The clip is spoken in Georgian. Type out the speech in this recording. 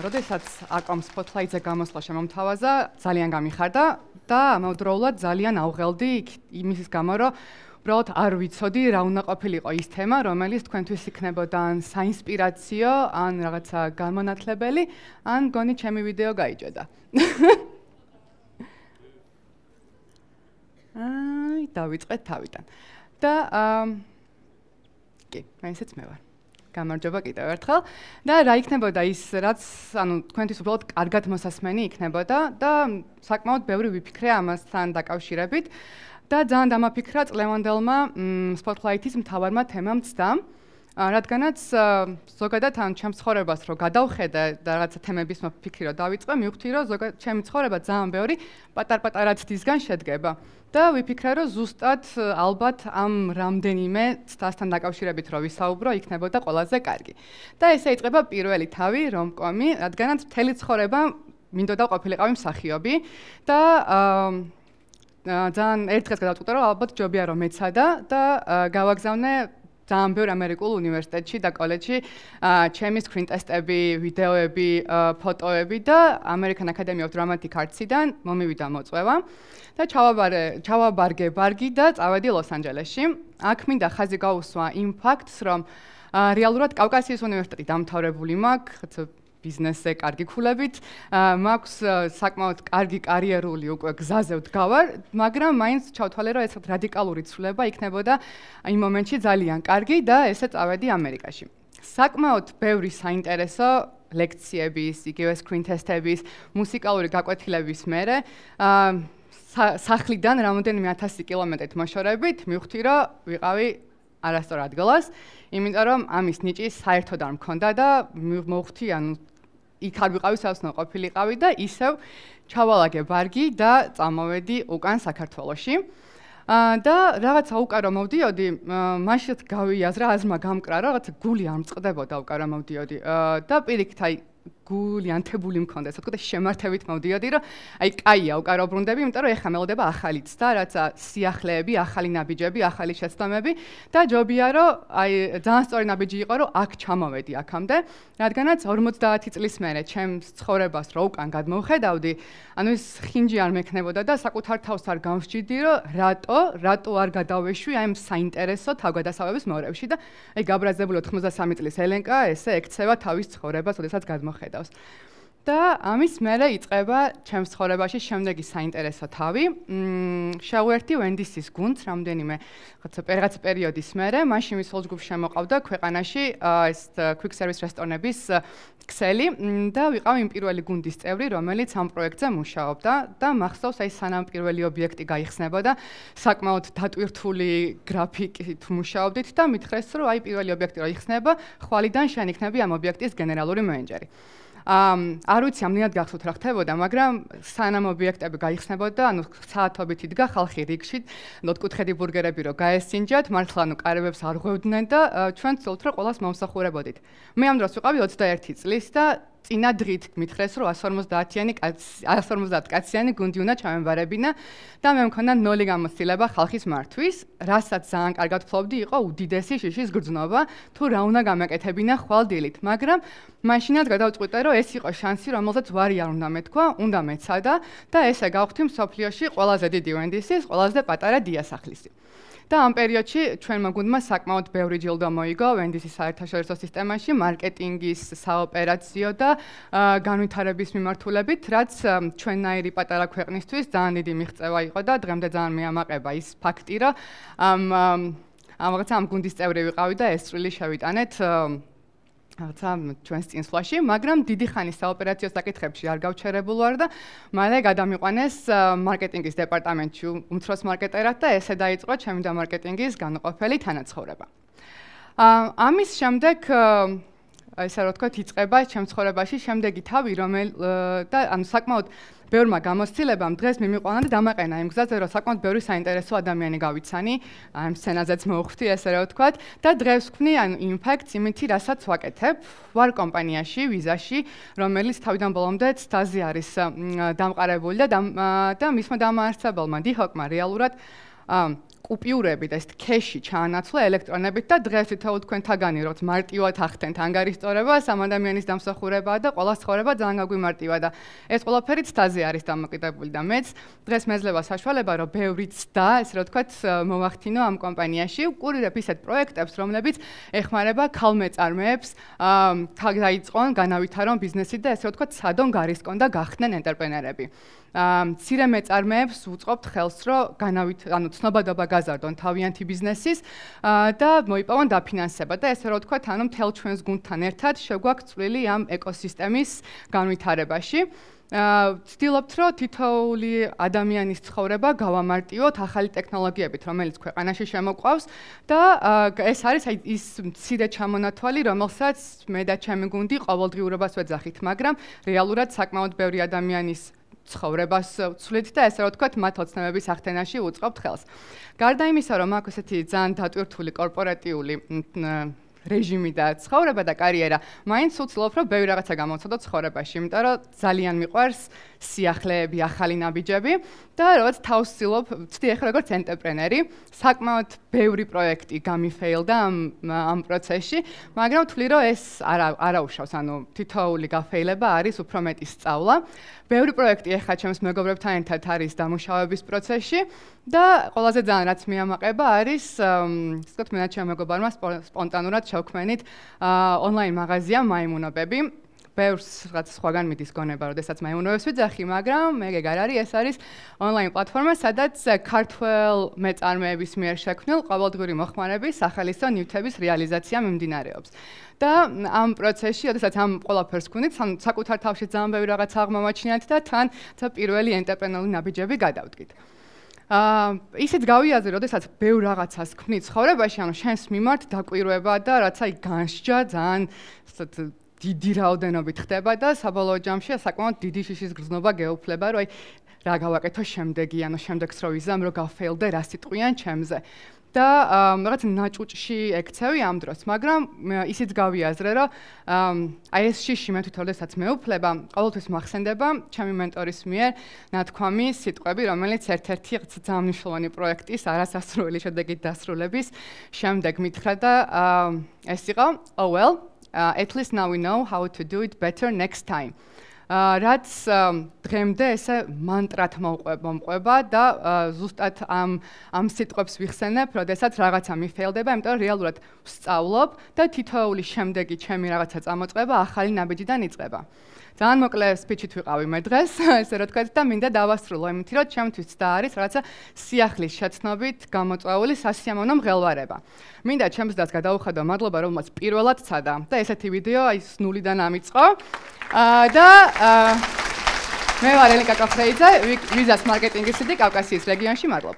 როდესაც აკომ Spotlight-ზე გამოსვლა შემომთავაზა, ძალიან გამიხარდა და ამავდროულად ძალიან ავღელდი იმის გამო, რომ უბრალოდ არ ვიცოდი რა უნდა ყოფილიყო ის თემა, რომელიც თქვენთვის იქნებოდა ან საინსპირაციო, ან რაღაცა განმანათლებელი, ან გონი ჩემი ვიდეო გაიჭედა. დავიწყეთ თავიდან. და კი, ესეც მე ვარ. გამარჯობა კიდევ ერთხელ და რა იქნებოდა ის, რაც თქვენთვის უბრალოდ კარგად მოსასმენი იქნებოდა და საკმაოდ ბევრი ვიფიქრე ამასთან დაკავშირებით და ძალიან დამაფიქრა წლევანდელმა Spotlight-ის მთავარმა თემამ ცდამ, რადგანაც ზოგადად ჩემს ცხოვრებას რო გადავხედე და რაღაცა თემების მოფიქრი რო დავიწყე, მივხვდი რომ ზოგადად ჩემი ცხოვრება ძალიან ბევრი პატარ-პატარა ცდისგან შედგება. და ვიფიქრე, რომ ზუსტად ალბათ ამ რამდენიმე ცდასთან დაკავშირებით რო ვისაუბრო, იქნებოდა ყველაზე კარგი. და ესე იწყება პირველი თავი რომკომი, რადგანაც მთელი ცხოვრება მინდოდა ყოფილიყავი მსახიობი და ძალიან ერთ დღეს გადავწყვიტე, რომ ალბათ ჯობია რომ მეცადა და გავაგზავნე ძალიან ბევრ ამერიკულ უნივერსიტეტში და კოლეჯში ჩემი screen test-ები, ვიდეოები, ფოტოები და American Academy of Dramatic Arts-იდან მომივიდა მოწვევა და ჩავაბარგე ბარგი და წავედი ლოს-ანჯელესში. აქ მინდა ხაზი გაუსვა იმ ფაქტს, რომ რეალურად კავკასიის უნივერსიტეტი დამთავრებული მაქვს, ბიზნესზე კარგი ქულებით, მაქვს საკმაოდ კარგი კარიერული უკვე გზაზე ვდგავარ, მაგრამ მაინც ჩავთვალე, რომ ეს რადიკალური ცვლილება იქნებოდა იმ მომენტში ძალიან კარგი და ესე წავედი ამერიკაში. საკმაოდ ბევრი საინტერესო ლექციების, იგივე screen test-ების, მუსიკალური გაკვეთილების მერე სახლიდან რამდენიმე 1000 კილომეტრით მოშორებით მივხვდი, რომ ვიყავი არასწორ ადგილას, იმიტომ რომ ამის ნიჭი საერთოდ არ მქონდა და მოვხვდი, იქ არ ვიყავი, სადაც უნდა ყოფილიყავი და ისევ ჩავალაგე ბარგი და წამოვედი უკან საქართველოში. და რაღაცა უკან რომ მოვდიოდი, მაშინ გავიაზრა, აზრმა გამკრა, რაღაცა გული არ მწყდებოდა უკან რომ მოვდიოდი და პირიქით აი გული ანთებული მქონდა, ასე ვთქვათ, შემართებით მოვდიოდი, რომ აი კაია უკან რო ბრუნდები, იმიტომ რომ ეხლა მელოდება ახალი ცდა, რაცა სიახლეები, ახალი ნაბიჯები, ახალი შეცდომები და ჯობია რომ აი ძალიან სწორი ნაბიჯი იყო, რომ აქ ჩამოვედი აქამდე, რადგანაც 50 წლის მერე ჩემს ცხოვრებას რო უკან გადმოვხედავდი, ანუ ეს ხინჯი არ მექნებოდა და საკუთარ თავს არ გამსჯიდი, რომ რატო არ გადავეშვი აი ამ საინტერესო თავგადასავლების მორევში და აი გაბრაზებული 93 წლის ელენკა ესე ექცევა თავის ცხოვრებას, როდესაც ხედავს. და ამის მერე იწყება ჩემს ცხოვრებაში შემდეგი საინტერესო თავი. შევერთი Wendy's-ის გუნდს რამდენიმე რაღაც პერიოდის მერე, მაშინ ვის ჯგუფს შემოყავდა ქვეყანაში ეს quick service რესტორნების ქსელი და ვიყავ იმ პირველი გუნდის წევრი, რომელიც ამ პროექტზე მუშაობდა და მახსოვს აი სანამ პირველი ობიექტი გაიხსნებოდა, საკმაოდ დატვირთული გრაფიკით მუშაობდით და მითხრეს, რომ აი პირველი ობიექტი რო იხსნება, ხვალიდან შენ იქნები ამ ობიექტის გენერალური მენეჯერი. არ ვიცი ამდენად გახსოვთ რა ხდებოდა, მაგრამ სანამ ობიექტები გაიხსნებოდა, ანუ საათობით იდგა ხალხი რიგში, ოთხკუთხედი ბურგერები რო გაესინჯათ, მართლა ანუ კარებებს არ ღვევდნენ და ჩვენ ვცდილობთ რომ ყველას მომსახურებოდით. მე ამ დროს ვიყავი 21 წლის და წინა დღით მითხრეს, რომ 150 კაციანი გუნდი უნდა ჩამემβარებინა და მე მქონდა 0 გამოცდილება ხალხის მართვის, რასაც ძალიან კარგად ვფლობდი, იყო უდიდესი შიშის გრძნობა, თუ რა უნდა გამეკეთებინა ხვალ-დილით, მაგრამ მაშინაც გადავწყვიტე, რომ ეს იყო შანსი, რომელზეც ვარი არ უნდა მეთქვა, უნდა მეცადა და ესე გავხდი მსოფლიოში ყველაზე დიდი Wendy's-ის, ყველაზე პატარა დიასახლისი. და ამ პერიოდში ჩვენმა გუნდმა საკმაოდ ბევრი ჯილდო მოიგო Wendy's-ის საერთაშორისო სისტემაში, მარკეტინგის, საოპერაციო და განვითარების მიმართულებით, რაც ჩვენნაირი პატარა ქვეყნისთვის ძალიან დიდი მიღწევა იყო და დღემდე ძალიან მეამაყება ის ფაქტი, რომ ამ გუნდის წევრი ვიყავი და ეს წვლილი შევიტანეთ რაღაცა ჩვენს წინსვლაში, მაგრამ დიდი ხანი საოპერაციო საკითხებში არ გავჩერებულ ვარ და მალე გადამიყვანეს მარკეტინგის დეპარტამენტში უმცროს მარკეტერად და ესე დაიწყო ჩემი და მარკეტინგის განუყოფელი თანაცხოვრება. ამის შემდეგ ესე რა ვთქვათ, იწყება ჩემს ცხოვრებაში შემდეგი თავი, და ანუ საკმაოდ ბევრმა გამოცდილებამ დღეს მიმიყვანა და დამაყენა იმ გზაზე, რომ საკმაოდ ბევრი საინტერესო ადამიანი გავიცანი, ამ სცენაზეც მოვხვდი, ესე რა ვთქვათ, და დღეს ვქმნი ანუ იმპაქტს იმითი, რასაც ვაკეთებ, ვარ კომპანიაში, ვიზაში, რომელიც თავიდან ბოლომდე ცდაზე არის დამყარებული და მისმა დამაარსებელმა დიჰოკმა რეალურად კუპიურები და ეს ქეში ჩაანაცვლა ელექტრონებით და დღეს თითოეულ თქვენთაგანი როგორც მარტივად ახდენთ ანგარიშწორება, სამ ადამიანის დამსახურებაა და ყველა ცხოვრება ძალიან გაგვიმარტივა და ეს ყველაფერი ცდაზე არის დამოკიდებული და მეც დღეს მეძლევა საშუალება რომ ბევრი ცდა, ესე რომ ვთქვათ, მოვახდინო ამ კომპანიაში, ვკურირებ ისეთ პროექტებს, რომლებიც ეხმარება ქალმეწარმეებს, დაიწყონ, განავითარონ ბიზნესი და ესე რომ ვთქვათ, სადონ გარისკონ და გახდნენ ენტერპრენერები. მცირე მეწარმეებს ვუწყობთ ხელს, რომ ცნობადობა გაზარდონ თავიანთი ბიზნესის და მოიპოვონ დაფინანსება და ესე რომ ვთქვათ, მთელ ჩვენს გუნდთან ერთად შეგვაქვს წვლილი ამ ეკოსისტემის განვითარებაში. ვცდილობთ, რომ თითოეული ადამიანის ცხოვრება გავამარტივოთ ახალი ტექნოლოგიებით, რომელიც ქვეყანაში შემოყვავს და ეს არის ის მცირე ჩამონათვალი, რომელსაც მე და ჩემი გუნდი ყოველდღიურობას ვეძახით, მაგრამ რეალურად საკმაოდ ბევრი ადამიანის ცხოვრებას ვცვლით და ესე რომ ვთქვათ, მათ ოცნებების ახდენაში უწყობთ ხელს. გარდა იმისა, რომ აქვს ესეთი ძალიან დატვირთული კორპორატიული რეჟიმი და ცხოვრება და კარიერა, მაინც ვცდილობ, რომ ბევრი რაღაცა გამოვცადო ცხოვრებაში, იმიტომ რომ ძალიან მიყვარს სიახლეები, ახალი ნაბიჯები და როგორც თავს ვცდი ახლა როგორც ენტერპრენერი, საკმაოდ ბევრი პროექტი გამიფეილდა ამ პროცესში, მაგრამ ვთვლი, რომ ეს არაუშავს, თითოეული გაფეილება არის უფრო მეტი სწავლა. ბევრი პროექტი ახლა ჩემს მეგობრებთან ერთად არის დამუშავების პროცესში და ყველაზე ძალიან რაც მიამაყება არის, ისე ვთქვათ, მე და ჩემი მეგობარმა სპონტანურად შევქმნით ონლაინ მაღაზია მაიმუნობები. ბევრს რაღაც სხვაგან მიდის გონება, როდესაც მაიმუნობებს ვიძახი, მაგრამ მეგ არ არის, ეს არის ონლაინ პლატფორმა, სადაც ქართველ მეწარმეების მიერ შექმნილ ყოველდღიური მოხმარების სახელის და ნივთების რეალიზაცია მიმდინარეობს. და ამ პროცესში, როდესაც ამ ყველაფერს ვქვნით, საკუთარ თავში ძალიან ბევრი რაღაც აღმოვაჩინეთ და თან პირველი ენტერპრენერული ნაბიჯები გადავდგით. ისიც გავიაზრე, როდესაც ბევრ რაღაცას ვქმნით ცხოვრებაში, შენს მიმართ დაკვირვება და რაცა განსჯა ძალიან დიდი რაოდენობით ხდება და საბოლოო ჯამში საკმაოდ დიდი შიშის გრძნობა გეუფლება, რომ რა გავაკეთო შემდეგი, შემდეგს რო ვიზამ, რომ გავფეილდე, რა სიტყვიან ჩემზე. და რაღაც ნაჭუჭში ექცევი ამ დროს, მაგრამ ისიც გავიაზრე, რომ ეს შიში მე თვითონ როდესაც მეუფლება, ყოველთვის მახსენდება ჩემი მენტორის მიერ ნათქვამი სიტყვები, რომელიც ერთ-ერთი ძალიან მნიშვნელოვანი პროექტის არასასრული შედეგით დასრულების შემდეგ მითხრა და ეს იყო, oh well, at least now we know how to do it better next time. რაც დღემდე ესე მანტრად მომყვება და ზუსტად ამ სიტყვებს ვიხსენებ, როდესაც რაღაცა მიფეილდება, იმიტომ რომ რეალურად ვსწავლობ და თითოეული შემდეგი ჩემი რაღაცა წამოწყება ახალი ნაბიჯიდან იწყება. ძალიან მოკლე სპიჩით ვიყავი მე დღეს, ესე რომ ვთქვათ და მინდა დავასრულო იმით, რომ ჩემთვის ცდა არის რაღაცა სიახლის შეცნობით გამოწვეული სასიამოვნო მღელვარება. მინდა ჩემს დას გადავუხადო მადლობა, რომელმაც პირველად ცადა და ესეთი ვიდეო ის ნულიდან ამიწყო. და მე ვარ ელენკა კაფრეიძე, ვიზას მარკეტინგის სიტი კავკასიის რეგიონში, მადლობა.